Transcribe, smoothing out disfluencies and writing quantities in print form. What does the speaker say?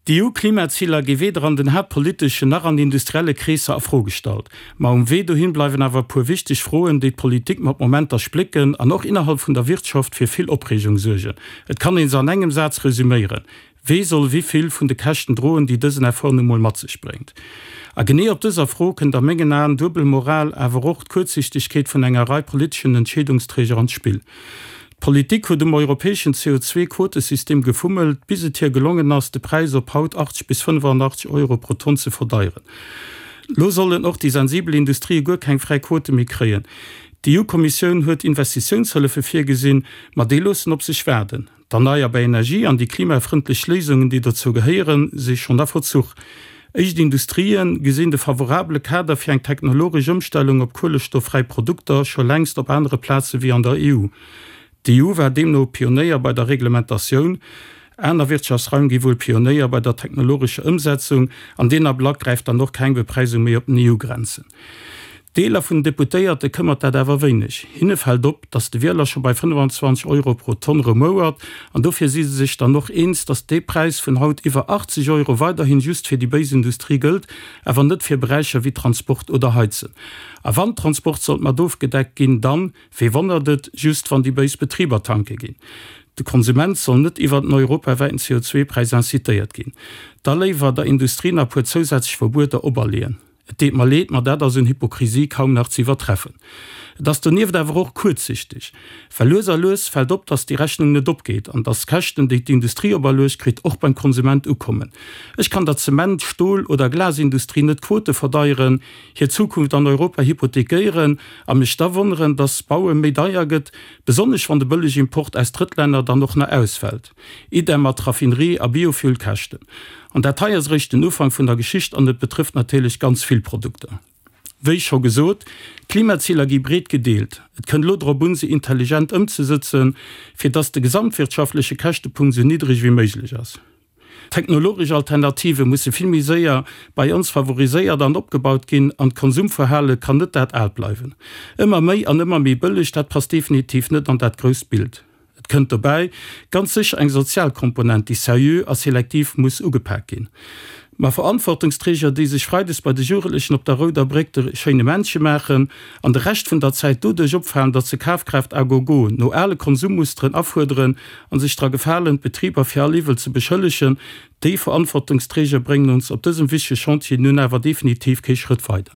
D'EU-Klimaziler gi weder an den haaptpoliteschen nach an industrielle Kreesser a Fro gestallt. Ma um Wee dohin bleiwen awer e puer wichteg Froen, déi d'Politik mat Momenter splécken an och innerhalb vun der Wirtschaft fir vill Opreegung suergen. Et kann ee se an engem Saz resüméieren, Wee soll wéi vill vun de Käschten droen, déi dësen Effort nu mol mat sech bréngt? A genee op dëser Fro kënnt a mengen Aen duebel Moral, awer och d'Kuerzsichtegkeet vun enger Rei politeschen Entscheedungsträger an d'Spill. D'Politik huet um europäeschen CO2-Quotesystem gefummelt, bis et hir gelongen ass, de Präis op haut 80 bis 85 Euro pro Tonn ze verdeieren. Lo sollen och déi sensibel Industrië guer keng fräi Quote méi kréien. D'EU-Kommissioun huet Investitiounshëllefe virgesinn, ma déi loossen op sech waarden. D'erneierbar Energie an déi klimafrëndlech Léisungen, déi dozou gehéieren, si schonn a Verzuch. Éischt Industrië gesinn de favorabele Kader fir eng technologesch Ëmstellung op kuelestoffräi Produkter scho längst op anere Plaze wéi an der EU. D'EU war deemno Pionéier bei der Reglementatioun. Aner Wirtschaftsraim gi wuel Pionéier bei der technologescher Ëmsetzung. An deen Ablack gräift dann och keng Bepreisung méi op den EU-Grenzen. Deeler vun den Deputéierte këmmert dat awer wéineg. Hinne fält op, datt de Wieler scho bei 25 Euro pro Tonn rumouert an dofir si se sech dann och eens, datt dee Präis vun haut iwwer 80 Euro weiderhin just fir déi béis Industrie gëllt, awer net fir Beräicher wéi Transport oder Heizen. A wann Transport sollt mat ofgedeckt ginn, dann, wee wonnert et, just wann déi béis Betriber tanke ginn. De Konsument soll net iwwert en europawäiten CO2-Präis incitéiert ginn. Da léiwer der Industrie nach puer zousätzlech Verbueter operleeën. Et deet mer leed, ma dat ass un Hypokrisie kaum nach ze iwwertreffen. Et ass donieft awer och kuerzsichteg, well lues a lues fält op, dass déi Rechnung net opgeet an dass d'Käschten, déi d'Industrie operluecht kritt, och beim Konsument ukommen. Ech kann der Zement-, Stol oder Glasindustrie net d'Quote verdeieren, hir Zukunft an Europa hypothekéieren a mech da wonneren, dass Baue méi deier gëtt, besonnesch wann de Bëllegimport aus Drëttlänner dann och nach ausfält. Idem mat Raffinerie a Biofuelkäschten. An dat hei ass eréischt den Ufank vun der Geschicht an et betrëfft natierlech ganz vill Produkter. Wéi scho gesot, d'Klimaziler gi breet gedeelt. Et kënnt elo drop un, se intelligent ëmzesëtzen, fir dass de gesamtwirtschaftleche Käschtepunkt esou niddreg wéi méiglech ass. Technologesch Alternative musse vill méi séier bei ons favoriséiert an opgebaut ginn an d'Konsumverhale kann net dat aalt bleiwen. Ëmmer méi an ëmmer méi bëlleg, dat passt definitiv net an dat grousst Bild. Et kënnt dobäi ganz sécher eng sozial Komponent, déi seriö a selektiv muss ugepak ginn. Ma Verantwortungsträger, déi sech freides bei de Jugendlechen op der Rouder Bréck de schéine Männche maachen an de Rescht vun der Zäit doduerch opfalen, datt se Kafkraaft à gogo no ale Konsummusteren afuerderen a sech dra gefalen, d'Betriber fir all Iwwel ze beschëllegen, déi Verantwortungsträger bréngen ons op dësem wichtege Chantier nun awer definitiv kee Schrëtt weider.